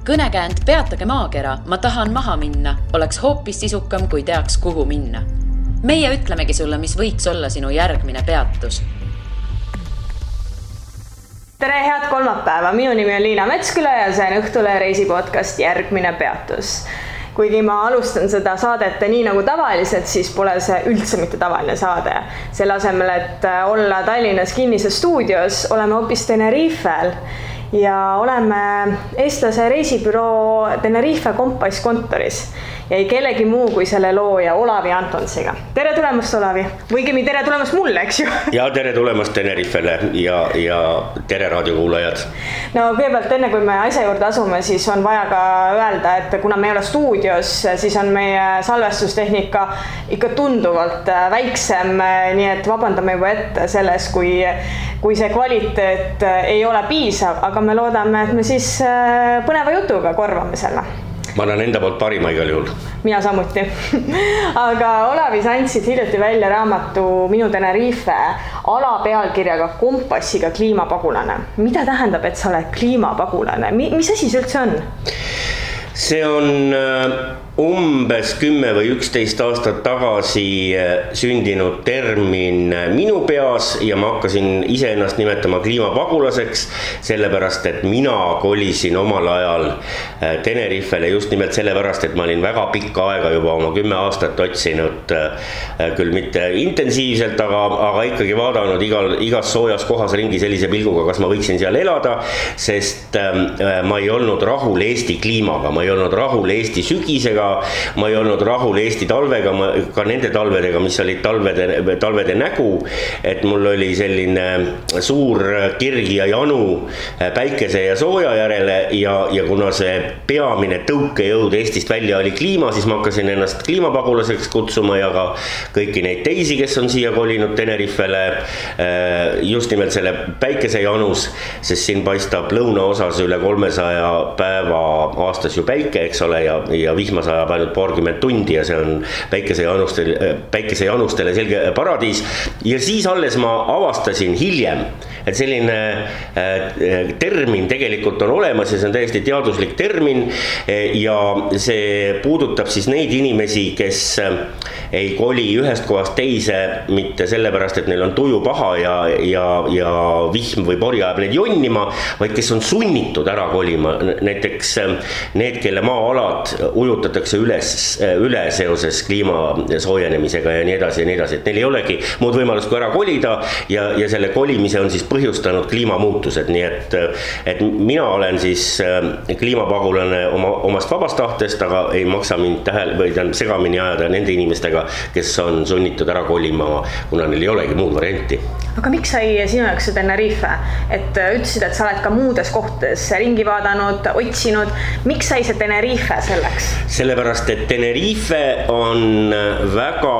Kõnekäänd Peatage maakera, ma tahan maha minna, oleks hoopis sisukam, kui teaks, kuhu minna. Meie ütlemegi sulle, mis võiks olla sinu järgmine peatus. Tere, head kolmapäeva! Minu nimi on Liina Metsküla ja see on Õhtulehe reisipodcast Järgmine peatus. Kuigi ma alustan seda saadet nii nagu tavaliselt, siis pole see üldse mitte tavaline saade. Selle asemel, et olla Tallinnas kinnises stuudios, oleme hoopis Tenerifel ja oleme eestlase reisibüroo Tenerife Kompass kontoris ja ei kellegi muu kui selle looja Olavi Antonsiga. Tere tulemast, Olavi! Võigemi tere tulemast mulle, eks ju? Ja tere tulemast Tenerifele ja tere raadiokuulajad. No kõigepealt enne, kui me asja juurde asume, siis on vaja ka öelda, et kuna me ei ole stuudios, siis on meie salvestustehnika ikka tunduvalt väiksem, nii et vabandame juba ette selles, kui see kvaliteet ei ole piisav, aga me loodame, et me siis põneva jutuga korvame selle. Ma annan enda poolt parima igal juhul. Mina samuti. Aga Olavi, sa andsid hiljuti välja raamatu Minu Tenerife alapealkirjaga Kompassiga kliimapagulane. Mida tähendab, et sa oled kliimapagulane? Mis asi see üldse on? See on umbes 10 või 11 aastat tagasi sündinud termin minu peas ja ma hakkasin iseennast nimetama kliimapagulaseks, sellepärast, et mina kolisin omal ajal Tenerifele just nimelt sellepärast, et ma olin väga pikka aega juba oma 10 aastat otsinud, küll mitte intensiivselt, aga ikkagi vaadanud igas soojas kohas ringi sellise pilguga, kas ma võiksin seal elada, sest ma ei olnud rahul Eesti kliimaga, ma ei olnud rahul Eesti sügisega, ma ei olnud rahul Eesti talvega, ka nende talvedega, mis olid talvede nägu, et mul oli selline suur kirg ja janu päikese ja sooja järele ja kuna see peamine tõukejõud Eestist välja oli kliima, siis ma hakkasin ennast kliimapagulaseks kutsuma ja ka kõiki neid teisi, kes on siia kolinud Tenerifele just nimelt selle päikese janus, sest siin paistab lõunaosas üle 300 päeva aastas ju päike, eks ole, ja vihma sajab ainult paarkümmend tundi ja see on päikesejanustele selge paradiis. Ja siis alles ma avastasin hiljem, et selline termin tegelikult on olemas ja see on täiesti teaduslik termin ja see puudutab siis neid inimesi, kes ei koli ühest kohast teise mitte sellepärast, et neil on tuju paha ja vihm või pori ajab neid jonnima, vaid kes on sunnitud ära kolima. Näiteks need, kelle maa-alad ujutatakse üle seoses kliima soojenemisega ja nii edasi, et neil ei olegi muud võimalust kui ära kolida ja selle kolimise on siis põhjustanud kliimamuutused, nii et mina olen siis kliimapagulane omast vabast tahtest, aga ei maksa mind segamini ajada nende inimestega, kes on sunnitud ära kolima, kuna neil ei olegi muud varianti. Aga miks sai sinu jaoks see Tenerife? Et ütlesid, et sa oled ka muudes kohtades ringi vaadanud, otsinud. Miks sai see Tenerife selleks? Sellepärast, et Tenerife on väga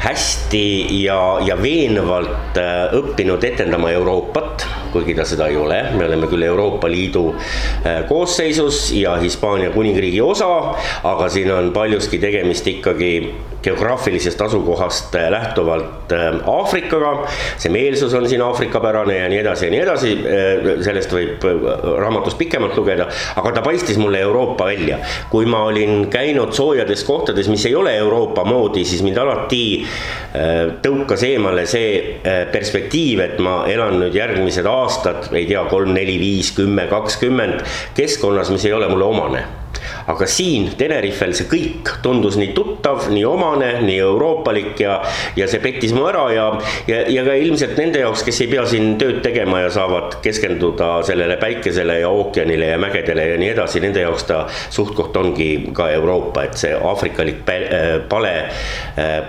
hästi ja veenvalt õppinud etendama Euroopat, kuigi ta seda ei ole. Me oleme küll Euroopa Liidu koosseisus ja Hispaania kuningriigi osa, aga siin on paljuski tegemist ikkagi geograafilisest asukohast lähtuvalt Aafrikaga. See meelsus on siin Aafrikapärane ja nii edasi. Sellest võib raamatust pikemalt lugeda, aga ta paistis mulle Euroopa välja. Kui ma olin käinud soojades kohtades, mis ei ole Euroopa moodi, siis mind alati tõukas eemale see perspektiiv, et ma elan nüüd järgmised aastad, ei tea, 3, 4, 5, 10, 20 keskkonnas, mis ei ole mulle omane. Aga siin Tenerifel see kõik tundus nii tuttav, nii omane, nii euroopalik ja see pettis mu ära ja ka ilmselt nende jaoks, kes ei pea siin tööd tegema ja saavad keskenduda sellele päikesele ja ookeanile ja mägedele ja nii edasi, nende jaoks ta suhtkoht ongi ka Euroopa, et see aafrikalik pale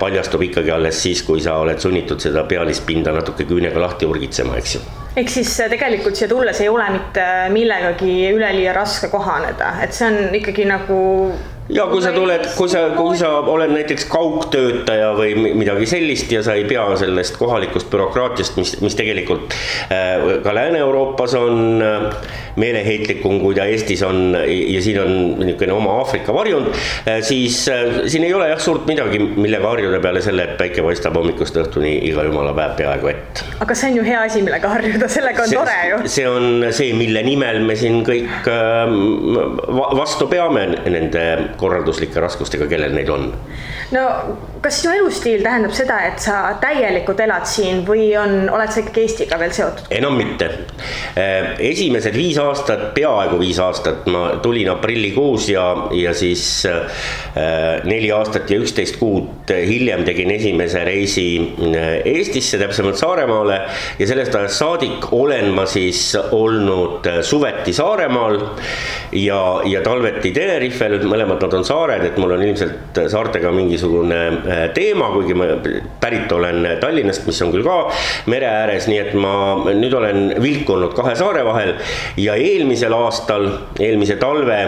paljastub ikkagi alles siis, kui sa oled sunnitud seda pealispinda natuke küünega lahti urgitsema, eks ju. Ehk siis tegelikult siia tulles ei ole mitte millegagi üleliia raske kohaneda, et see on ikkagi nagu Ja kui sa oled näiteks kaugtöötaja või midagi sellist ja sa ei pea sellest kohalikust bürokraatiast, mis tegelikult ka Lääne-Euroopas on meeleheitlikum, kui ta Eestis on ja siin on niisugune oma Aafrika varjund, siis siin ei ole suurt midagi, millega harjuda peale selle, et päike paistab hommikust õhtuni iga jumala päev peaaegu ett. Aga see on ju hea asi, millega harjuda, sellega on tore ju. See on see, mille nimel me siin kõik vastu peame nende korralduslike raskustega, kellel neid on. No, kas sinu elustiil tähendab seda, et sa täielikult elad siin või oled sa ikkagi Eestiga veel seotud? Enam mitte. Esimesed 5 aastat, peaaegu 5 aastat, ma tulin aprillikuus ja siis 4 aastat ja 11 kuud hiljem tegin esimese reisi Eestisse, täpsemalt Saaremaale ja sellest ajast saadik olen ma siis olnud suveti Saaremaal ja talveti Tenerifel, mõlemad nad on saared, et mul on ilmselt saartega mingisugune teema, kuigi ma pärit olen Tallinnast, mis on küll ka mere ääres, nii et ma nüüd olen vilkunud 2 saare vahel ja eelmise talve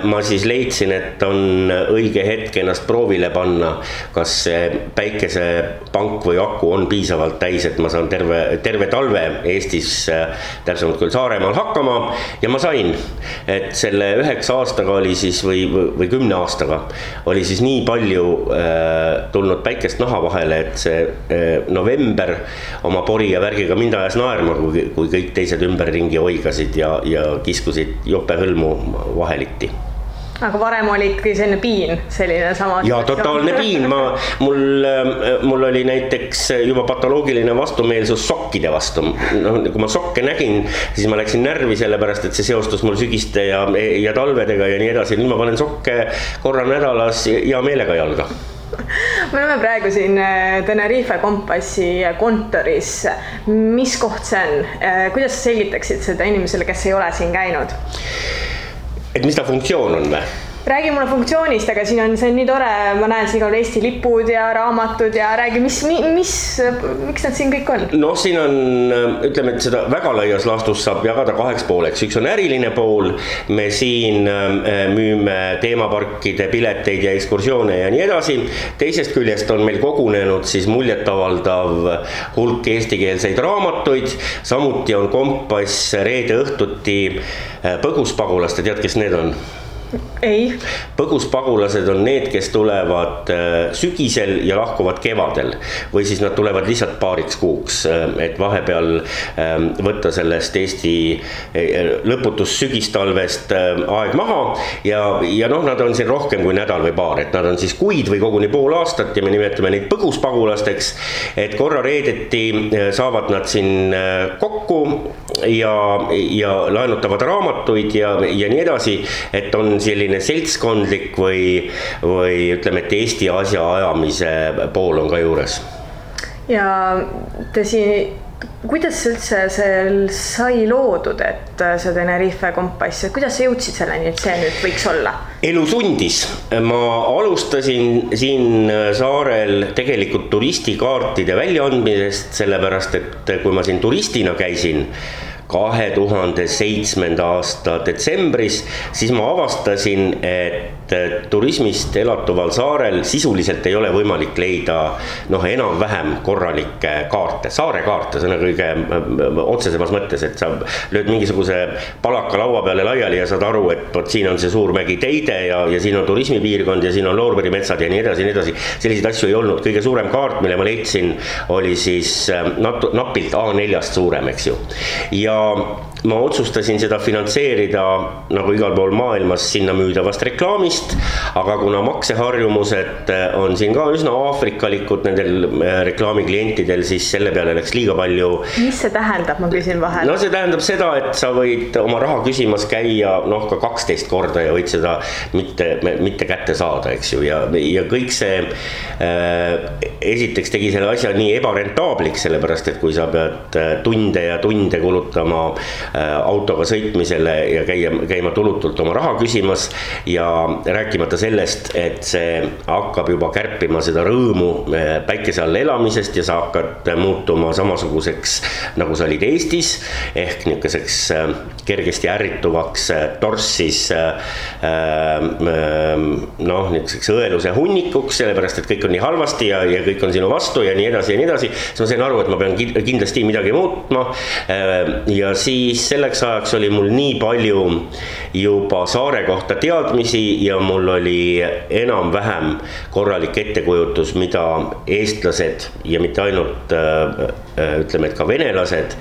ma siis leidsin, et on õige hetk ennast proovile panna, kas see päikesepank või aku on piisavalt täis, et ma saan terve talve Eestis, täpsemalt küll Saaremaal hakkama ja ma sain, et selle 9 aastaga oli siis või 10 aastaga oli siis nii palju tulnud päikest naha vahele, et see november oma pori ja värgiga mind ajas naerma, kui kõik teised ümberringi oigasid ja kiskusid jope hõlmu vaheliti. Aga varem oli ikkagi selline piin, selline sama. Ja totaalne piin, mul oli näiteks juba patoloogiline vastumeelsus sokkide vastu. No, kui ma sokke nägin, siis ma läksin närvi sellepärast, et see seostus mul sügiste ja talvedega ja nii edasi. Nüüd ma panen sokke korra nädalas ja meelega jalga. Me oleme praegu siin Tenerife Kompassi kontoris. Mis koht see on? Kuidas sa selgitaksid seda inimesele, kes ei ole siin käinud? Et mis ta funktsioon on või? Räägi mulle funktsioonist, aga see on nii tore, ma näen siin on Eesti lipud ja raamatud ja räägi, miks nad siin kõik on? No siin on, ütleme, et seda väga laias laastus saab jagada 2 pooleks. Üks on äriline pool, me siin müüme teemaparkide pileteid ja ekskursioone ja nii edasi. Teisest küljest on meil kogunenud siis muljetavaldav hulk eestikeelseid raamatuid, samuti on Kompass reede õhtuti põguspagulaste, tead, kes need on? Ei. Põguspagulased on need, kes tulevad sügisel ja lahkuvad kevadel või siis nad tulevad lihtsalt paariks kuuks, et vahepeal võtta sellest Eesti lõputus sügistalvest aeg maha ja noh, nad on siin rohkem kui nädal või paar, et nad on siis kuid või koguni pool aastat ja me nimetame neid põguspagulasteks, et korra reedeti saavad nad siin kokku ja laenutavad raamatuid ja nii edasi, et on selline seltskondlik või ütleme, et Eesti asja ajamise pool on ka juures. Ja kuidas üldse see sai loodud, et see Tenerife Kompass, kuidas sa jõudsid selleni, et see nüüd võiks olla? Elu sundis. Ma alustasin siin saarel tegelikult turistikaartide väljaandmisest, sellepärast, et kui ma siin turistina käisin 2007. aasta detsembris, siis ma avastasin, et turismist elatuval saarel sisuliselt ei ole võimalik leida enam-vähem korralikke kaarte, saare kaarte, see on kõige otsesemas mõttes, et sa lööd mingisuguse palaka laua peale laiali ja saad aru, et siin on see suur mägi Teide ja siin on turismipiirkond ja siin on loorberimetsad ja nii edasi, selliseid asju ei olnud. Kõige suurem kaart, mille ma leidsin, oli siis napilt A4-st suurem, eks ju. Ja ma otsustasin seda finantseerida nagu igal pool maailmas sinna müüdavast reklaamist, aga kuna makseharjumused on siin ka üsna aafrikalikud nendel reklaamiklientidel, siis selle peale läks liiga palju. Mis see tähendab, ma küsin vahel? No see tähendab seda, et sa võid oma raha küsimas käia ka 12 korda ja võid seda mitte kätte saada, eks ju, ja kõik see esiteks tegi selle asja nii ebarentaabliks, sellepärast, et kui sa pead tunde ja tunde kulutama autoga sõitmisele ja käima tulutult oma raha küsimas ja rääkimata sellest, et see hakkab juba kärpima seda rõõmu päikese all elamisest ja sa hakkad muutuma samasuguseks, nagu sa olid Eestis, ehk niisuguseks kergesti ärrituvaks torssis niisuguseks õeluse hunnikuks, sellepärast, et kõik on nii halvasti ja kõik on sinu vastu ja nii edasi ja nii edasi. Siis ma sain aru, et ma pean kindlasti midagi muutma ja siis selleks ajaks oli mul nii palju juba saare kohta teadmisi ja mul oli enam-vähem korralik ettekujutus, mida eestlased ja mitte ainult ütleme, et ka venelased,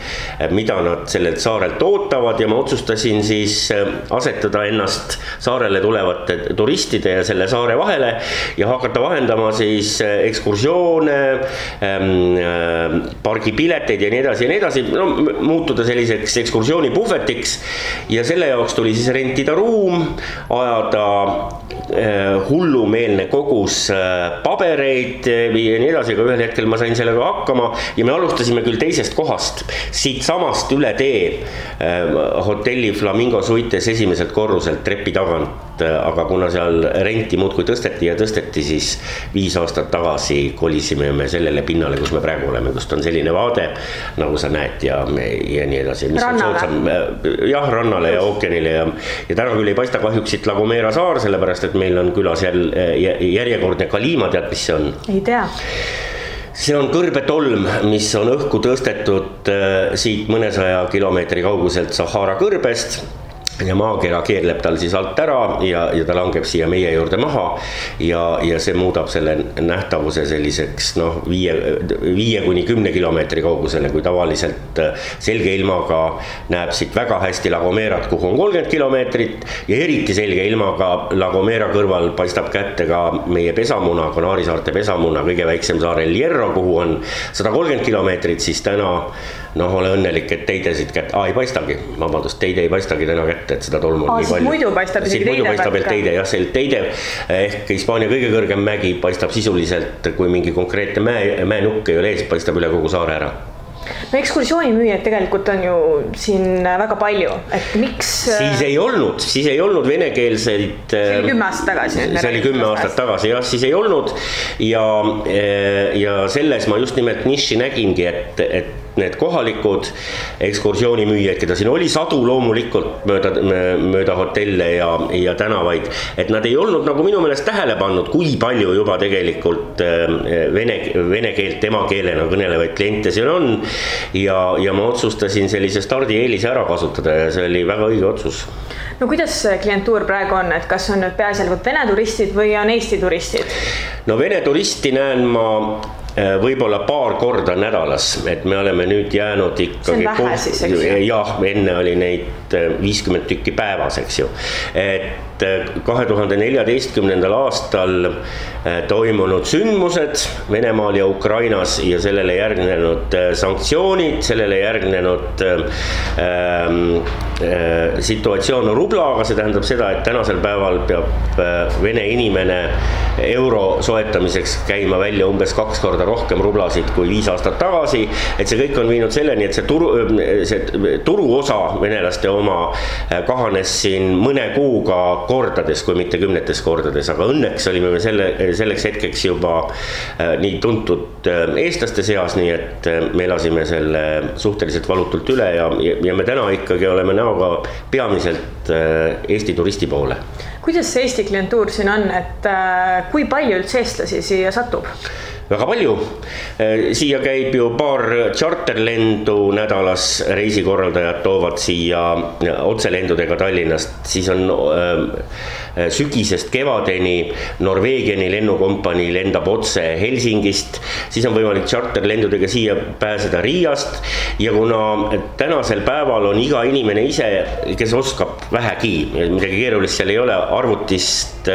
mida nad sellelt saarelt ootavad ja ma otsustasin siis asetada ennast saarele tulevate turistide ja selle saare vahele ja hakata vahendama siis ekskursioone, pargipileteid ja nii edasi, no, muutuda selliseks ekskursioonipuhvetiks ja selle jaoks tuli siis rentida ruum, ajada hullumeelne kogus pabereid ja nii edasi, aga ühel hetkel ma sain sellega hakkama ja me alustasime küll teisest kohast, siit samast üle tee hotelli Flamingo Suites esimeselt korruselt trepi tagant, aga kuna seal renti muudkui tõsteti, siis 5 aastat tagasi kolisime me sellele pinnale, kus me praegu oleme, kust on selline vaade, nagu sa näed ja nii edasi. Rannale. Jah, rannale ja ookeanile ja täna küll ei paista kahjuks siit La Gomera saar, sellepärast, et meil on külas järjekordne Kalima, tead, mis see on? Ei tea. See on kõrbetolm, mis on õhku tõstetud siit mõnesaja kilomeetri kauguselt Sahara kõrbest ja maakera keerleb tal siis alt ära ja ta langeb siia meie juurde maha ja see muudab selle nähtavuse selliseks 5 kuni 10 kilomeetri kaugusele, kui tavaliselt selge ilmaga näeb siit väga hästi La Gomerat, kuhu on 30 kilomeetrit ja eriti selge ilmaga La Gomera kõrval paistab kätte ka meie pesamuna, Kanaari saarte pesamuna, kõige väiksem saar El Hierro, kuhu on 130 kilomeetrit, siis täna ole õnnelik, et teidesid kätte, ei paistagi, vabandust, teide ei paistagi täna kätte, et seda tolmu on nii palju. Muidu paistab isegi teide paistab teide, jah, see teide ehk Hispaania kõige kõrgem mägi paistab sisuliselt, kui mingi konkreetne mäenukk ei ole ees, paistab üle kogu saare ära. No ekskursioonimüüjad tegelikult on ju siin väga palju, et miks... Siis ei olnud venekeelseid... See oli 10 aastat tagasi. See oli 10 aastat tagasi, jah, siis ei olnud ja selles ma just nimelt niši nägingi, et need kohalikud ekskursioonimüüjad, keda siin oli sadu loomulikult mööda hotelle ja tänavaid, et nad ei olnud nagu minu meelest tähele pannud, kui palju juba tegelikult vene keelt emakeelena kõnelevaid kliente siin on ja ma otsustasin sellise stardieelise ära kasutada ja see oli väga õige otsus. No kuidas klientuur praegu on, et kas on nüüd peaasjalikult vene turistid või on Eesti turistid? No vene turisti näen ma võib-olla paar korda nädalas, et me oleme nüüd jäänud ikkagi... See on vähe siis, eks ju? Jah, enne oli neid 50 tükki päevas, eks ju. Et 2014. aastal toimunud sündmused Venemaal ja Ukrainas ja sellele järgnenud sanktsioonid, sellele järgnenud situatsioon rublaga, see tähendab seda, et tänasel päeval peab vene inimene euro soetamiseks käima välja umbes 2 korda rohkem rublasid kui 5 aastat tagasi, et see kõik on viinud selleni, et see turuosa venelaste oma kahanes siin mõne kuuga kordades, kui mitte 10 kordades, aga õnneks olime me selleks hetkeks juba nii tuntud eestlaste seas, nii et me elasime selle suhteliselt valutult üle ja me täna ikkagi oleme näoga peamiselt Eesti turisti poole. Kuidas see Eesti klientuur siin on, et kui palju üldse eestlasi siia satub? Väga palju. Siia käib ju paar charterlendu nädalas, reisikorraldajad toovad siia otselendudega Tallinnast, siis on sügisest kevadeni Norveegiani lennukompanii lendab otse Helsingist, siis on võimalik charterlendudega siia pääseda Riiast ja kuna tänasel päeval on iga inimene ise, kes oskab vähegi, midagi keerulist seal ei ole, arvutist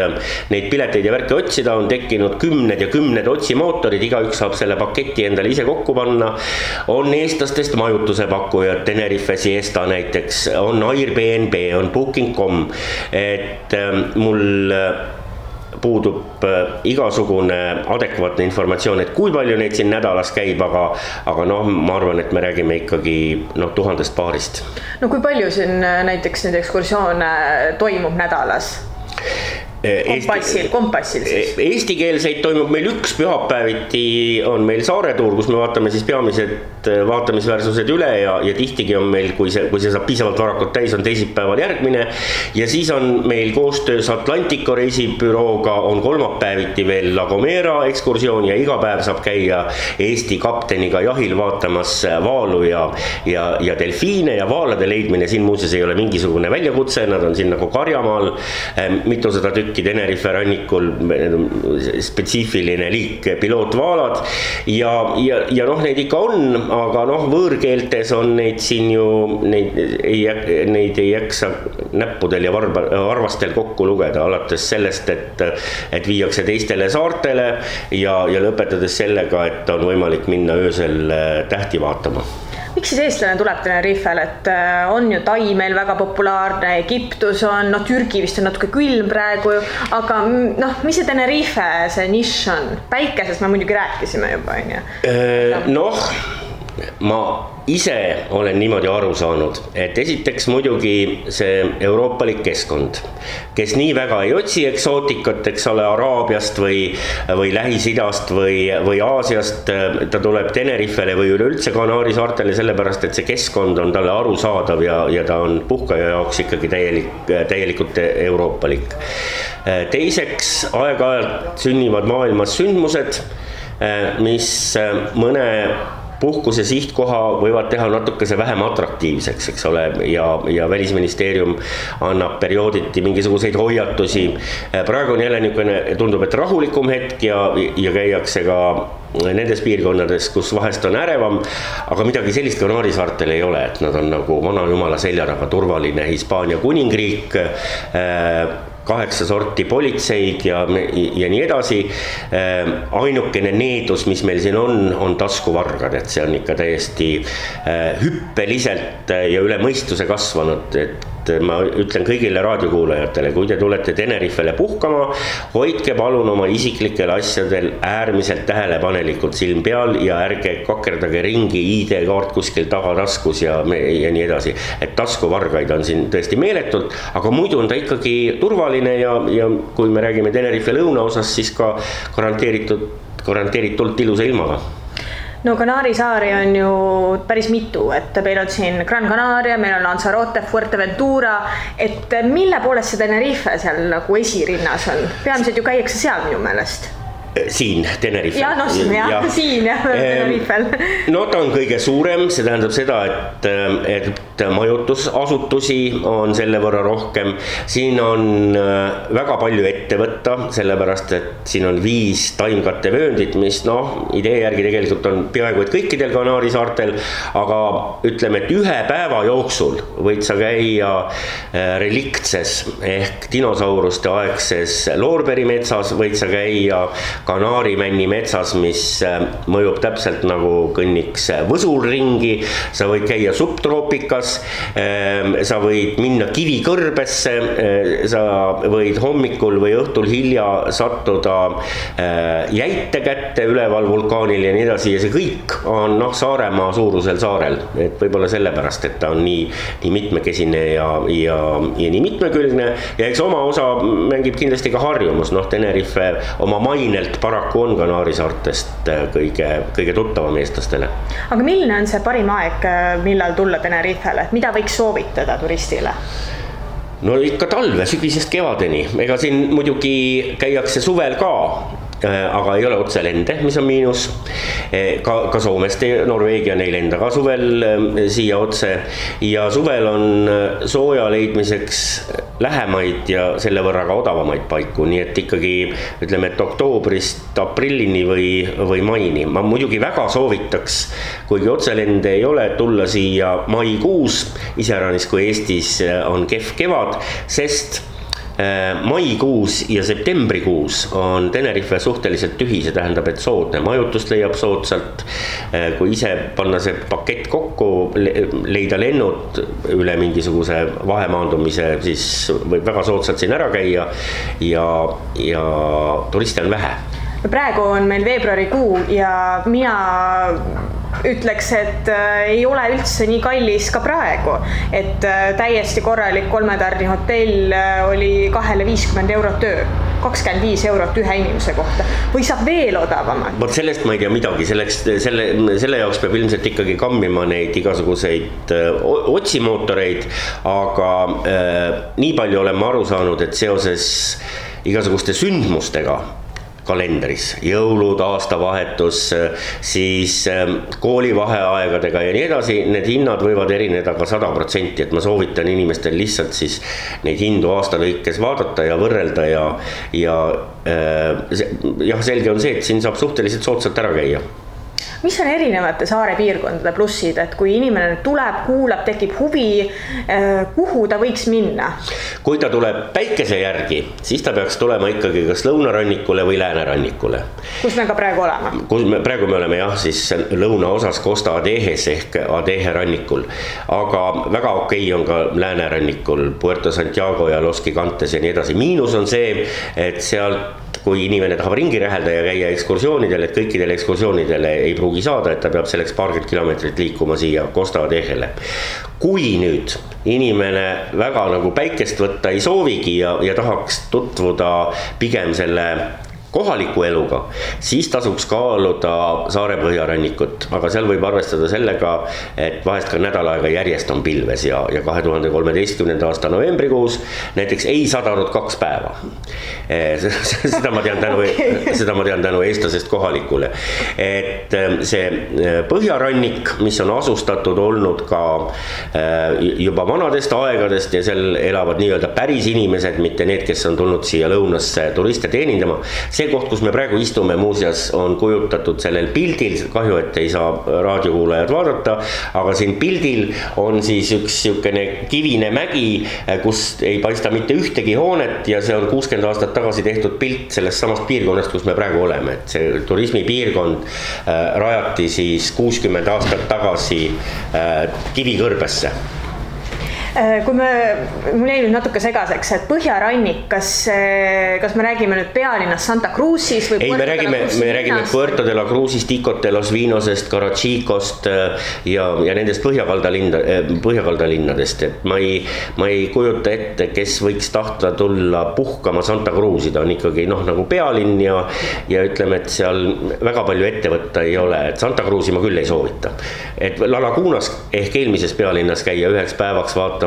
neid pileteid ja värke otsida, on tekkinud 10 otsimootorid, igaüks saab selle paketi endale ise kokku panna, on eestlastest majutuse pakkujad, Tenerife Siesta näiteks, on Airbnb, on Booking.com, et mul puudub igasugune adekvaatne informatsioon, et kui palju neid siin nädalas käib, aga noh, ma arvan, et me räägime ikkagi 1000 paarist. No kui palju siin näiteks neid ekskursioone toimub nädalas? Kompassil siis. Eestikeelseid toimub meil üks pühapäeviti, on meil saaretuur, kus me vaatame siis peamised vaatamisväärsused üle ja tihtiga on meil, kui see saab piisavalt varakult täis, on teisipäeval järgmine. Ja siis on meil koostöös Atlantico reisibürooga on kolmapäeviti veel La Gomera ekskursioon ja iga päev saab käia Eesti kapteniga jahil vaatamas vaalu ja delfiine ja vaalade leidmine. Siin muuseas ei ole mingisugune väljakutse, nad on siin nagu Karjamaal, mitusada tükki Tenerife rannikul, spetsiifiline liik pilootvaalad ja noh, neid ikka on, aga noh, võõrkeeltes on neid siin ju, neid ei jaksa näppudel ja varvastel kokku lugeda, alates sellest, et viiakse teistele saartele ja lõpetades sellega, et on võimalik minna öösel tähti vaatama. Miks siis eestlane tuleb Tenerifel, et on ju Tai meil väga populaarne, Egiptus on, Türgi vist on natuke külm praegu, aga mis see Tenerife, see nišš on? Päikesest me muidugi rääkisime juba, on ju? Ma ise olen niimoodi aru saanud, et esiteks muidugi see euroopalik keskkond, kes nii väga ei otsi eksootikat, eks ole, Araabiast või Lähis-Idast või Aasiast, ta tuleb Tenerifele või üleüldse Kanaari saartele sellepärast, et see keskkond on talle arusaadav ja ta on puhkaja jaoks ikkagi täielikult euroopalik. Teiseks, aeg-ajalt sünnivad maailmas sündmused, mis mõne puhkuse sihtkoha võivad teha natukese vähem atraktiivseks, eks ole, ja Välisministeerium annab periooditi mingisuguseid hoiatusi. Praegu on jälle niisugune, tundub, et rahulikum hetk ja käiakse ka nendes piirkonnades, kus vahest on ärevam, aga midagi sellist Kanaari saartel ei ole, et nad on nagu vana jumala seljaraga turvaline Hispaania kuningriik, 8 sorti politseid ja nii edasi. Ainukene needus, mis meil siin on taskuvargad, et see on ikka täiesti hüppeliselt ja üle mõistuse kasvanud, et ma ütlen kõigile raadiokuulajatele, kui te tulete Tenerifele puhkama, hoidke palun oma isiklikel asjadel äärmiselt tähelepanelikult silm peal ja ärge kakerdage ringi ID-kaart kuskil tagataskus ja nii edasi. Et taskuvargaid on siin tõesti meeletult, aga muidu on ta ikkagi turvaline ja kui me räägime Tenerife lõunaosas, siis ka garanteeritult ilusa ilmaga. No Kanaari saari on ju päris mitu, et meil on siin Gran Canaria, meil on Lanzarote, Fuerteventura, et mille poolest see Tenerife seal nagu esirinnas on? Peamiselt ju käiakse seal minu meelest. Siin Tenerifel. Siin Tenerifel. No ta on kõige suurem, see tähendab seda, et majutusasutusi on selle võrra rohkem. Siin on väga palju ette võtta, sellepärast, et siin on 5 taimkattevööndit, mis idee järgi tegelikult on peaaegu et kõikidel Kanaari saartel, aga ütleme, et ühe päeva jooksul võid sa käia reliktses ehk dinosauruste aegses Loorberimetsas, võid sa käia Kanaari-Männi metsas, mis mõjub täpselt nagu kõnniks võsul ringi, sa võid käia subtroopikas, sa võid minna kivikõrbesse, sa võid hommikul või õhtul hilja sattuda jäite kätte üleval vulkaanil ja nii edasi ja see kõik on Saaremaa suurusel saarel, et võib-olla sellepärast, et ta on nii mitmekesine ja nii mitmekülgne ja eks oma osa mängib kindlasti ka harjumus, Tenerife oma mainelt paraku on Kanaari saartest kõige tuttavam eestlastele. Aga milline on see parim aeg, millal tulla Tenerifele, et mida võiks soovitada turistile? No ikka talve, sügisest kevadeni, ega siin muidugi käiakse suvel ka, aga ei ole otse lende, mis on miinus. Ka Soomest, Norveegia neil enda ka suvel siia otse ja suvel on sooja leidmiseks lähemaid ja selle võrra ka odavamaid paiku, nii et ikkagi ütleme, et oktoobrist aprillini või maini. Ma muidugi väga soovitaks, kuigi otselende ei ole, tulla siia maikuus, iseäranis kui Eestis on kehv kevad, sest maikuus ja septembrikuus on Tenerife suhteliselt tühi, see tähendab, et soodne majutust leiab soodsalt. Kui ise panna see pakett kokku, leida lennud üle mingisuguse vahemaandumise, siis võib väga soodsalt siin ära käia ja turiste on vähe. Praegu on meil veebruarikuu ja mina ütleks, et ei ole üldse nii kallis ka praegu, et täiesti korralik 3-tärni hotell oli 250 eurot öö, 25 eurot ühe inimese kohta või saab veel odavamalt. Vot sellest ma ei tea midagi, selle jaoks peab ilmselt ikkagi kammima neid igasuguseid otsimootoreid, aga nii palju oleme aru saanud, et seoses igasuguste sündmustega kalendris, jõulud, aastavahetus, siis koolivaheaegadega ja nii edasi, need hinnad võivad erineda ka 100%, et ma soovitan inimestel lihtsalt siis neid hindu aasta lõikes vaadata ja võrrelda ja selge on see, et siin saab suhteliselt soodsalt ära käia. Mis on erinevate saare piirkondade plussid, et kui inimene tuleb, kuulab, tekib huvi, kuhu ta võiks minna? Kui ta tuleb päikese järgi, siis ta peaks tulema ikkagi kas lõunarannikule või läänerannikule. Kus me ka praegu oleme? Praegu me oleme siis lõunaosas Costa Adejes ehk Adeje rannikul, aga väga okei on ka läänerannikul Puerto Santiago ja Los Gigantes ja nii edasi. Miinus on see, et sealt kui inimene tahab ringi rähelda ja käia ekskursioonidel, et kõikidele ekskursioonidele ei pruugi saada, et ta peab selleks paarkümmend kilomeetrit liikuma siia Costa Adejele. Kui nüüd inimene väga nagu päikest võtta ei soovigi ja tahaks tutvuda pigem selle kohaliku eluga, siis tasuks kaaluda saare põhjarannikut, aga seal võib arvestada sellega, et vahest ka nädal aega järjest on pilves ja 2013. aasta novembrikuus näiteks ei sadanud 2 päeva. Seda ma tean tänu eestlasest kohalikule. Et see põhjarannik, mis on asustatud olnud ka juba vanadest aegadest ja seal elavad nii-öelda päris inimesed, mitte need, kes on tulnud siia lõunasse turiste teenindama, see koht, kus me praegu istume, muuseas on kujutatud sellel pildil, kahju, et ei saa raadiokuulajad vaadata, aga siin pildil on siis üks siukene kivine mägi, kus ei paista mitte ühtegi hoonet ja see on 60 aastat tagasi tehtud pilt sellest samast piirkonnast, kus me praegu oleme. Et see turismipiirkond rajati siis 60 aastat tagasi Kivikõrbesse. Kui mul jäi nüüd natuke segaseks, et põhjarannik, kas me räägime nüüd pealinnas Santa Cruzis või Puerto de la Cruzis? Me räägime Puerto de la Cruzist, Icot de los Vinosest, Carachicost ja nendest põhjakaldalinnadest. Et ma ei kujuta ette, kes võiks tahta tulla puhkama Santa Cruzi, ta on ikkagi nagu pealinn ja ütleme, et seal väga palju ette võtta ei ole, et Santa Cruzi ma küll ei soovita. Et La Lagunas ehk eelmises pealinnas käia üheks päevaks vaata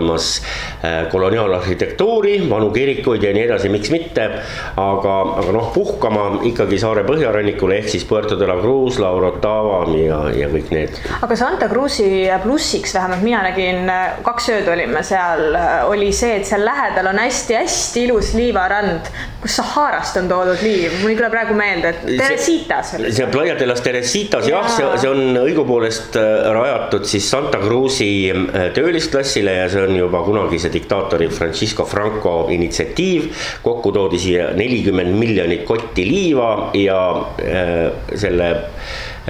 koloniaalarhitektuuri, vanu kirikuid ja nii edasi, miks mitte, aga puhkama ikkagi saare põhjarannikule ehk siis Puerto de la Cruz, La Orotava ja kõik need. Aga Santa Cruzi plussiks, vähemalt mina nägin, 2 ööd olime seal, oli see, et seal lähedal on hästi-hästi ilus liivarand, kus Saharast on toodud liiv. Mul ei tule praegu meelde, et Teresitas oli. See Playa de las Teresitas, see on õigupoolest rajatud siis Santa Cruzi töölisklassile ja see on juba kunagise diktaatori Francisco Franco initsiatiiv, kokku toodi siia 40 miljonit kotti liiva ja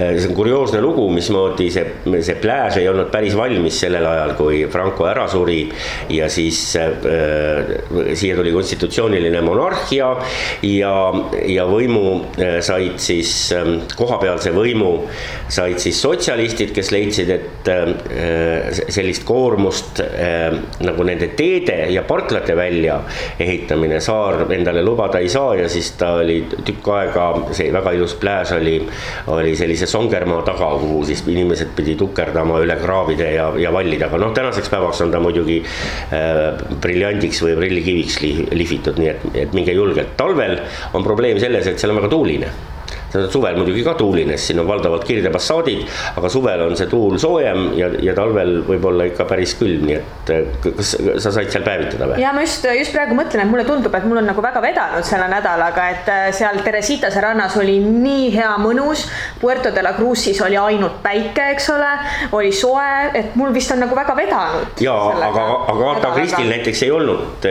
see on kurioosne lugu, mismoodi see plääž ei olnud päris valmis sellel ajal, kui Franco ära suri ja siis siia tuli konstitutsiooniline monarhia ja võimu said siis, kohapealse võimu said siis sotsialistid, kes leidsid, et sellist koormust nagu nende teede ja parklate välja ehitamine saar endale lubada ei saa ja siis ta oli tükk aega, see väga ilus plääž oli sellise Songermaa taga, kuhu siis inimesed pidi tukerdama üle kraavide ja vallida, aga tänaseks päevaks on ta muidugi briljandiks või prillikiviks lihvitud, nii et minge julgelt. Talvel on probleem selles, et seal on väga tuuline. suvel muidugi ka tuulines, siin on valdavalt kirdepassaadid, aga suvel on see tuul soojem ja talvel võib-olla ikka päris külm, nii et kas sa said seal päevitada või? Ja ma just praegu mõtlen, et mulle tundub, et mul on nagu väga vedanud selle nädalaga, et seal Teresitase rannas oli nii hea mõnus, Puerto de la Cruzis oli ainult päike, eks ole, oli soe, et mul vist on nagu väga vedanud. Jaa, aga Agatha Christil näiteks ei olnud,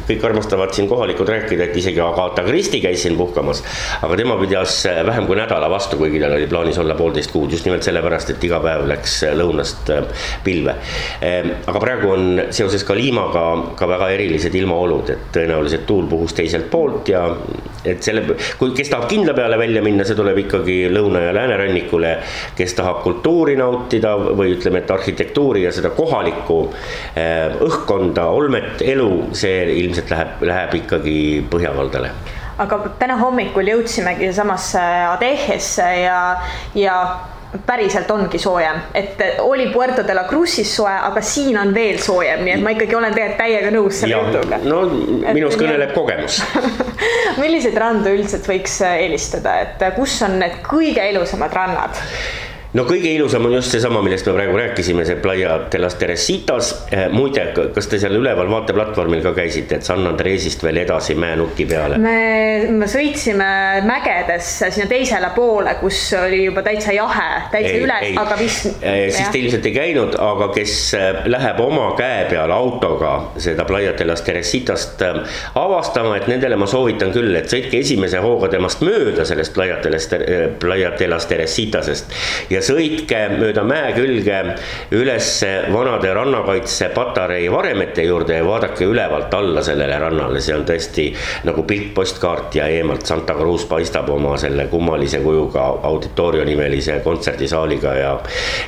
kõik armastavad siin kohalikud rääkida, et isegi Agatha Christie käis siin puhkamas, aga tema pidas vähem kui nädala vastu, kuigi tal oli plaanis olla 1,5 kuud, just nimelt sellepärast, et iga päev läks lõunast pilve. Aga praegu on seoses ka liimaga ka väga erilised ilmaolud, et tõenäoliselt tuul puhus teiselt poolt ja et kes tahab kindla peale välja minna, see tuleb ikkagi lõuna- ja läänerannikule, kes tahab kultuuri nautida või ütleme, et arhitektuuri ja seda kohalikku õhkkonda, olmet, elu, see ilmselt läheb ikkagi põhjakaldale. Aga täna hommikul jõudsimegi samasse Adehesse ja päriselt ongi soojem, et oli Puerto de la Cruzis soe, aga siin on veel soojem, nii et ma ikkagi olen täiega nõus selle jutuga. No minus kõneleb kogemus. Milliseid randu üldiselt võiks eelistada, et kus on need kõige ilusamad rannad? No kõige ilusam on just seesama, millest me praegu rääkisime, see Playa de las Teresitas. Muide, kas te seal üleval vaateplatvormil ka käisite, et San Andresist veel edasi mäenuki peale? Me sõitsime mägedesse sinna teisele poole, kus oli juba täitsa jahe, täitsa üles, aga vist... Siis te ilmselt ei käinud, aga kes läheb oma käe peal autoga seda Playa de las Teresitast avastama, et nendele ma soovitan küll, et sõitke esimese hooga temast mööda sellest Playa de las Teresitasest ja sõitke mööda mäe külge üles vanade rannakaitse patarei varemete juurde ja vaadake ülevalt alla sellele rannale. See on tõesti nagu pilt postkaart ja eemalt Santa Cruz paistab oma selle kummalise kujuga auditorio nimelise kontserdisaaliga ja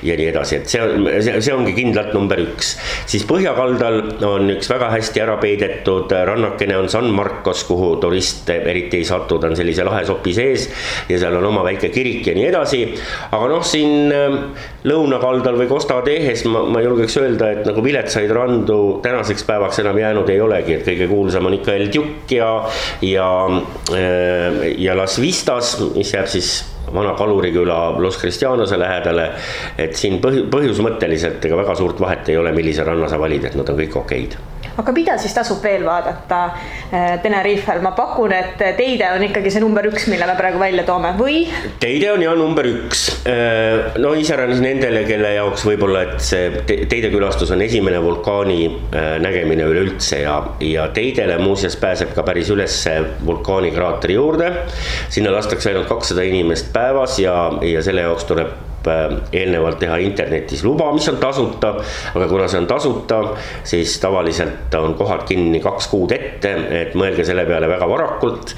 nii edasi. Et see ongi kindlalt number 1. Siis põhjakaldal on üks väga hästi ära peidetud rannakene on San Marcos, kuhu turist eriti ei satu, ta on sellise lahe sopi sees ja seal on oma väike kirik ja nii edasi. Aga siin lõunakaldal või Costa Adehes ma julgeks öelda, et nagu viletsaid randu tänaseks päevaks enam jäänud ei olegi, et kõige kuulsam on ikka El Duc ja Las Vistas, mis jääb siis vana kaluriküla Los Cristianose lähedale, et siin põhjusmõtteliselt ega väga suurt vahet ei ole, millise ranna sa valid, et nad on kõik okeid. Aga mida siis tasub veel vaadata Tenerifel? Ma pakun, et teide on ikkagi see number 1, mille me praegu välja toome, või? Teide on jah number 1. No iseäranis nendele, kelle jaoks võib-olla, et see teidekülastus on esimene vulkaani nägemine üleüldse ja teidele muuseas pääseb ka päris üles vulkaani kraatri juurde. Sinna lastakse ainult 200 inimest päevas ja selle jaoks tuleb eelnevalt teha internetis luba, mis on tasuta, aga kuna see on tasuta, siis tavaliselt on kohad kinni 2 kuud ette, et mõelge selle peale väga varakult.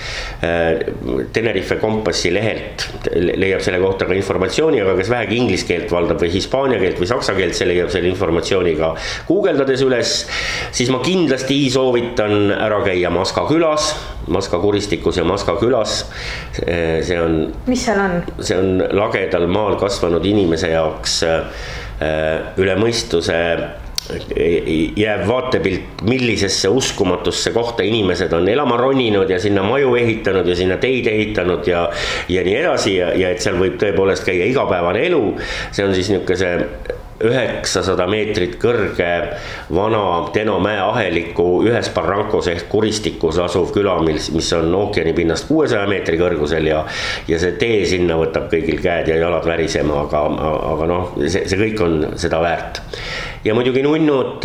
Tenerife kompassi lehelt leiab selle kohta ka informatsiooni, aga kes vähegi inglise keelt valdab või hispaania keelt või saksa keelt, see leiab selle informatsiooniga guugeldades üles, siis ma kindlasti soovitan ära käia Maska külas, Maska kuristikus ja Maska külas. See on, mis seal on? See on lagedal maal kasvanud inimese jaoks üle mõistuse jääb vaatepilt, millisesse uskumatusse kohta inimesed on elama roninud ja sinna maju ehitanud ja sinna teid ehitanud ja nii edasi ja et seal võib tõepoolest käia igapäevane elu. See on siis niisuguse 900 meetrit kõrge vana Teno mäe aheliku ühes Barrancos ehk kuristikus asuv küla, mis on ookeani pinnast 600 meetri kõrgusel ja see tee sinna võtab kõigil käed ja jalad värisema, aga noh, see kõik on seda väärt. Ja muidugi nunnud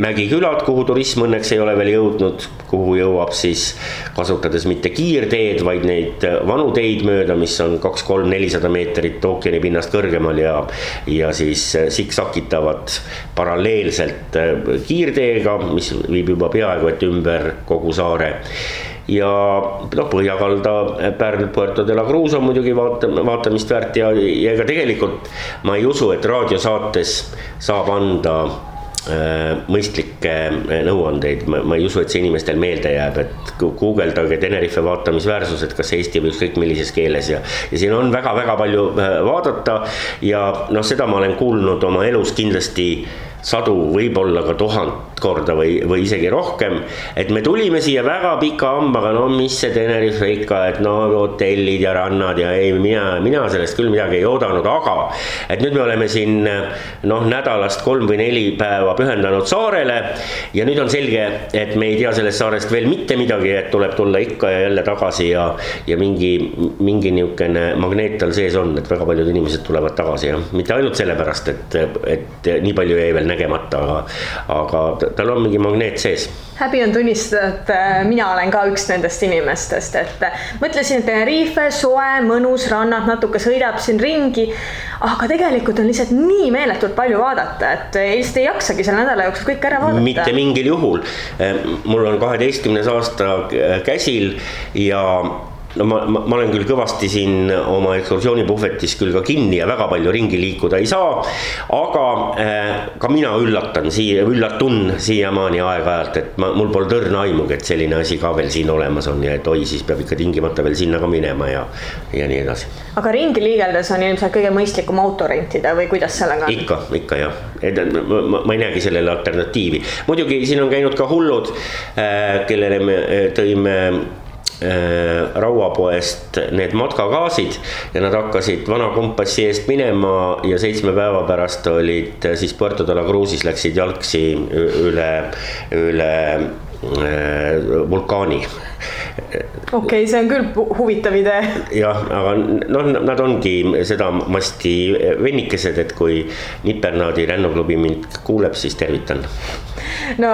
mägikülad, kuhu turism õnneks ei ole veel jõudnud, kuhu jõuab siis kasutades mitte kiirteed, vaid neid vanu teid mööda, mis on 200-400 meetrit ookeani pinnast kõrgemal ja siis siksakitavad paralleelselt kiirteega, mis viib juba peaaegu et ümber kogu saare. Ja põhjakalda Pärl Puerto de la Cruz on muidugi vaatamist väärt ja ega tegelikult ma ei usu, et raadiosaates saab anda mõistlikke nõuandeid, ma ei usu, et see inimestel meelde jääb, et guugeldage Tenerife vaatamisväärsus, et kas Eesti või ükskõik millises keeles ja siin on väga-väga palju vaadata ja seda ma olen kuulnud oma elus kindlasti 100, võib-olla ka 1000 korda või isegi rohkem, et me tulime siia väga pika hambaga, no mis see Tenerife ikka, et no hotellid ja rannad ja ei, mina sellest küll midagi ei oodanud, aga et nüüd me oleme siin nädalast 3 või 4 päeva pühendanud saarele ja nüüd on selge, et me ei tea sellest saarest veel mitte midagi, et tuleb tulla ikka ja jälle tagasi ja mingi niisugune magneet tal sees on, et väga paljud inimesed tulevad tagasi ja mitte ainult sellepärast, et nii palju jäi veel nägemata, aga tal on mingi magneet sees. Häbi on tunnistada, et mina olen ka üks nendest inimestest, et mõtlesin, et Tenerife, soe, mõnus, rannad, natuke sõidab siin ringi, aga tegelikult on lihtsalt nii meeletult palju vaadata, et lihtsalt ei jaksagi selle nädala jooksul kõik ära vaadata. Mitte mingil juhul. Mul on 12. aasta käsil ja no ma olen küll kõvasti siin oma ekskursioonipuhvetis küll ka kinni ja väga palju ringi liikuda ei saa, aga ka mina üllatun siiamaani aeg-ajalt, et mul pole tõrna aimugi, et selline asi ka veel siin olemas on ja et oi, siis peab ikka tingimata veel sinna ka minema ja nii edasi. Aga ringi liigeldes on ilmselt kõige mõistlikum auto rentida või kuidas sellega on? Ikka jah, ma ei näegi sellele alternatiivi. Muidugi siin on käinud ka hullud, kellele me tõime Rauapoest need matkakaasid ja nad hakkasid vana kompassi eest minema ja 7 päeva pärast olid siis Puerto de la Cruzis, läksid jalgsi üle vulkaani. Okei, see on küll huvitav idee. Jah, aga nad ongi seda masti vennikesed, et kui Nipernaadi rennuklubi mind kuuleb, siis tervitan. No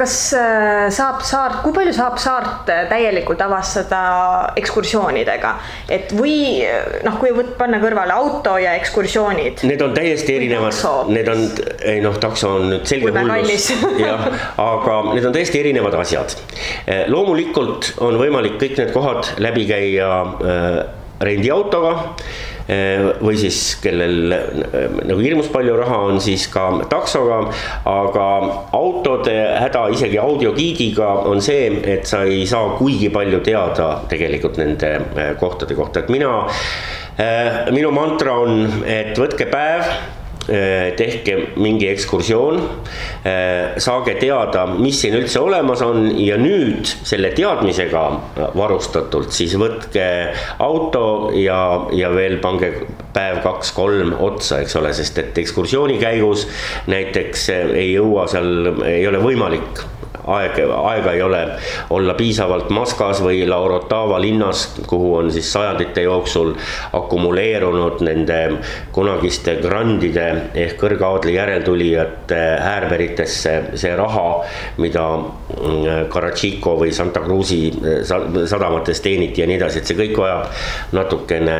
kas kui palju saab saart täielikult avastada ekskursioonidega, et või kui panna kõrvale auto ja ekskursioonid? Need on täiesti erinevad, takso on nüüd selge hullus, aga need on täiesti erinevad asjad. Loomulikult on võimalik kõik need kohad läbi käia rendiautoga või siis kellel nagu hirmus palju raha on, siis ka taksoga, aga autode häda isegi audiogiidiga on see, et sa ei saa kuigi palju teada tegelikult nende kohtade kohta, et minu mantra on, et võtke päev, tehke mingi ekskursioon, saage teada, mis siin üldse olemas on ja nüüd selle teadmisega varustatult siis võtke auto ja veel pange päev 2-3 otsa, eks ole, sest et ekskursiooni käigus näiteks ei ole võimalik aega ei ole olla piisavalt Maskas või La Orotava linnas, kuhu on siis sajandite jooksul akumuleerunud nende kunagiste grandide ehk kõrgaadli järeltulijate äärberitesse see raha, mida Karachico või Santa Cruzi sadamates teeniti ja nii edasi, et see kõik vajab natukene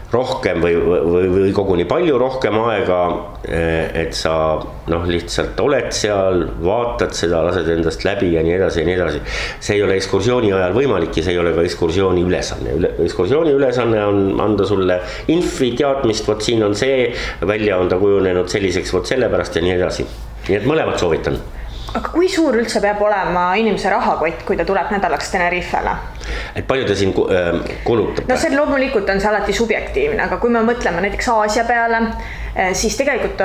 rohkem või koguni palju rohkem aega, et sa lihtsalt oled seal, vaatad seda, lased endast läbi ja nii edasi ja nii edasi. See ei ole ekskursiooni ajal võimalik ja see ei ole ka ekskursiooni ülesanne. Ekskursiooni ülesanne on anda sulle infi teadmist, võt siin on see, välja on ta kujunenud selliseks, võt sellepärast ja nii edasi. Nii et mõlemad soovitan. Aga kui suur üldse peab olema inimese rahakott, kui ta tuleb nädalaks Tenerifele? Et palju ta siin kulutab? No see loomulikult on see alati subjektiivne, aga kui me mõtleme näiteks Aasia peale, siis tegelikult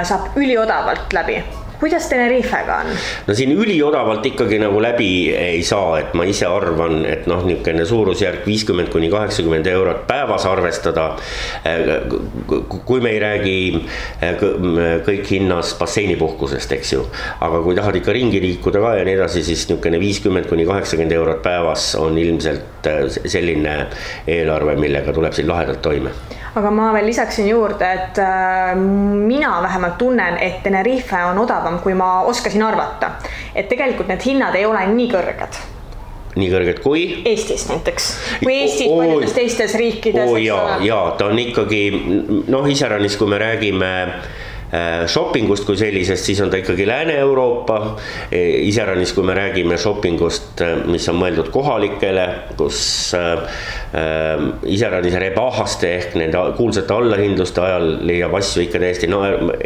saab üliodavalt läbi. Kuidas Tenerifega on? No siin üliodavalt ikkagi nagu läbi ei saa, et ma ise arvan, et niisugune suurusjärk 50–80 eurot päevas arvestada, kui me ei räägi kõik hinnas basseinipuhkusest, eks ju, aga kui tahad ikka ringi liikuda ka ja nii edasi, siis niisugune 50–80 eurot päevas on ilmselt selline eelarve, millega tuleb siin lahedalt toime. Aga ma veel lisaksin juurde, et mina vähemalt tunnen, et Tenerife on odavam, kui ma oskasin arvata. Et tegelikult need hinnad ei ole nii kõrged. Nii kõrged kui? Eestis näiteks. Kui Eestis paljudes teistes riikides. Jaa, ta on ikkagi, iseäranis, kui me räägime shoppingust kui sellisest, siis on ta ikkagi Lääne-Euroopa, iseäranis kui me räägime shoppingust, mis on mõeldud kohalikele, kus iseäranis rebahaste ehk nende kuulsate allahindluste ajal leiab asju ikka täiesti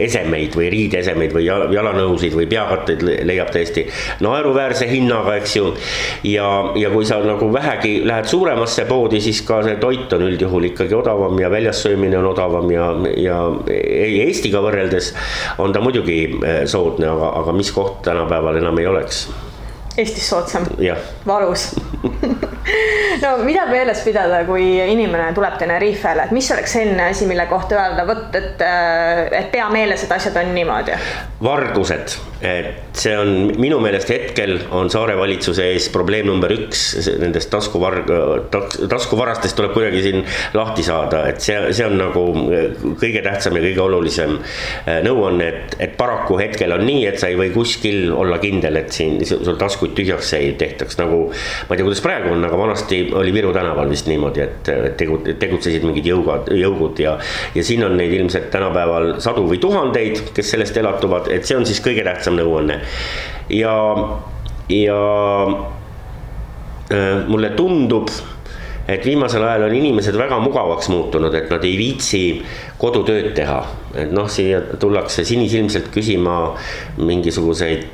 esemeid või riideesemeid või jalanõusid või peakatteid leiab täiesti naeruväärse hinnaga, eks ju, ja kui sa nagu vähegi lähed suuremasse poodi, siis ka see toit on üldjuhul ikkagi odavam ja väljas söömine on odavam ja Eestiga võrreldes võrreldes on ta muidugi soodne, aga mis koht tänapäeval enam ei oleks? Eestis soodsam, valus. No mida meeles pidada, kui inimene tuleb Tenerifele, et mis oleks selline asi, mille kohta öelda, võt, et pea meeles, et asjad on niimoodi? Vargused, et see on minu meelest hetkel on saare valitsuse ees probleem number 1, nendest taskuvarastest tuleb kuidagi siin lahti saada, et see on nagu kõige tähtsam ja kõige olulisem nõuanne, et paraku hetkel on nii, et sa ei või kuskil olla kindel, et siin sul taskuid tühjaks ei tehtaks, nagu ma ei tea, kuidas praegu on, aga vanasti oli Viru tänaval vist niimoodi, et tegutsesid mingid jõugud ja siin on neid ilmselt tänapäeval sadu või tuhandeid, kes sellest elatuvad, et see on siis kõige tähtsam nõuanne. Ja mulle tundub, et viimasel ajal on inimesed väga mugavaks muutunud, et nad ei viitsi kodutööd teha. Et siia tullakse sinisilmselt küsima mingisuguseid,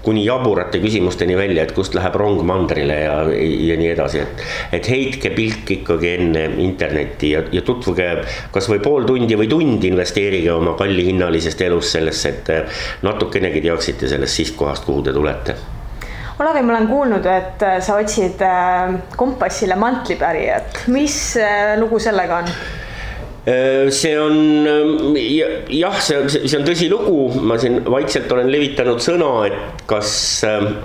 kuni jaburate küsimusteni välja, et kust läheb rong mandrile ja nii edasi, et heitke pilk ikkagi enne internetti ja tutvuge kas või pool tundi või tund investeerige oma kallihinnalisest elust sellesse, et natukenegi teaksite sellest sihtkohast, kuhu te tulete. Olavi, ma olen kuulnud, et sa otsid kompassile mantlipärijat. Mis lugu sellega on? See on, jah, see on tõsi lugu, ma siin vaikselt olen levitanud sõna, et kas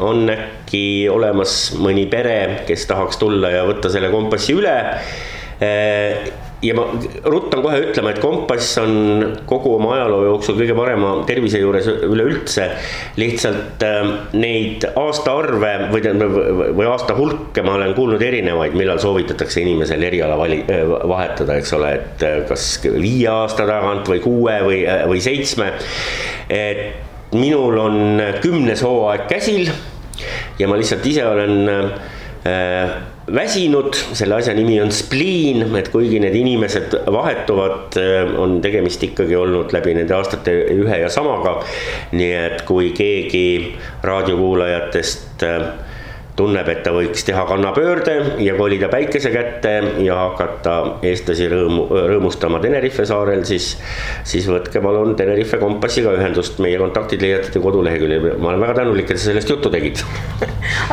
on äkki olemas mõni pere, kes tahaks tulla ja võtta selle kompassi üle. Ja ma ruttan kohe ütlema, et kompass on kogu oma ajaloo jooksul kõige parema tervise juures üleüldse. Lihtsalt neid aastaarve või aasta hulke ma olen kuulnud erinevaid, millal soovitatakse inimesel eriala vahetada, eks ole, et kas 5 aasta tagant või 6 või 7. Et minul on 10. hooaeg käsil ja ma lihtsalt ise olen väsinud, selle asja nimi on spleen, et kuigi need inimesed vahetuvad, on tegemist ikkagi olnud läbi nende aastate ühe ja samaga. Nii et kui keegi raadiokuulajatest tunneb, et ta võiks teha kannapöörde ja kolida päikese kätte ja hakata eestlasi rõõmustama Tenerife saarel, siis võtke palun Tenerife kompassiga ühendust, meie kontaktid leiate koduleheküljel. Ma olen väga tänulik, et sa sellest juttu tegid.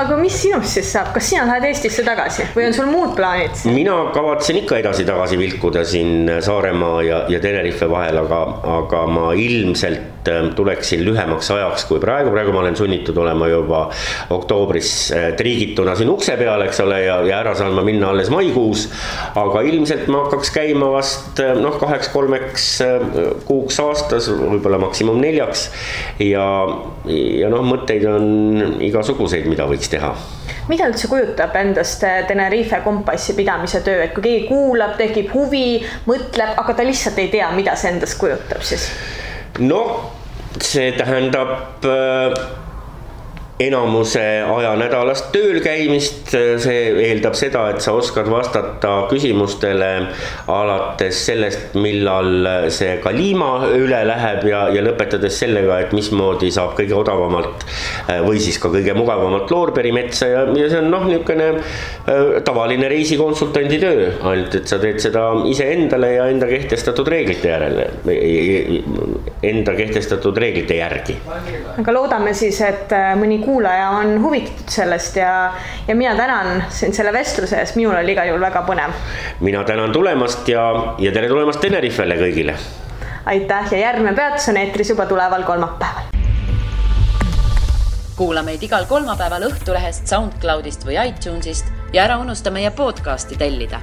Aga mis sinust siis saab? Kas sina lähed Eestisse tagasi või on sul muud plaanid? Mina kavatsen ikka edasi-tagasi vilkuda siin Saaremaa ja Tenerife vahel, aga ma ilmselt tuleksin lühemaks ajaks kui praegu. Praegu ma olen sunnitud olema juba oktoobris triigituna siin ukse peal, eks ole, ja ära saan ma minna alles maikuus, aga ilmselt ma hakkaks käima vast 2-3 kuuks aastas, võib-olla maksimum 4 ja mõtteid on igasuguseid, mida võiks teha. Mida üldse kujutab endast Tenerife kompassi pidamise töö, et kui keegi kuulab, tekib huvi, mõtleb, aga ta lihtsalt ei tea, mida see endast kujutab siis? See tähendab enamuse aja nädalast tööl käimist, see eeldab seda, et sa oskad vastata küsimustele alates sellest, millal see kaliima üle läheb ja lõpetades sellega, et mismoodi saab kõige odavamalt või siis ka kõige mugavamalt loorberimetsa ja see on niisugune tavaline reisikonsultandi töö, ainult et sa teed seda ise endale ja enda kehtestatud reeglite järgi. Aga loodame siis, et mõni kuulaja on huvitatud sellest ja mina tänan sind selle vestluse eest, minul oli igal juhul väga põnev. Mina tänan tulemast ja tere tulemast Tenerifele kõigile. Aitäh ja järgmine peatus on eetris juba tuleval kolmapäeval. Kuula meid igal kolmapäeval Õhtulehest, SoundCloudist või iTunesist ja ära unusta meie podcasti tellida.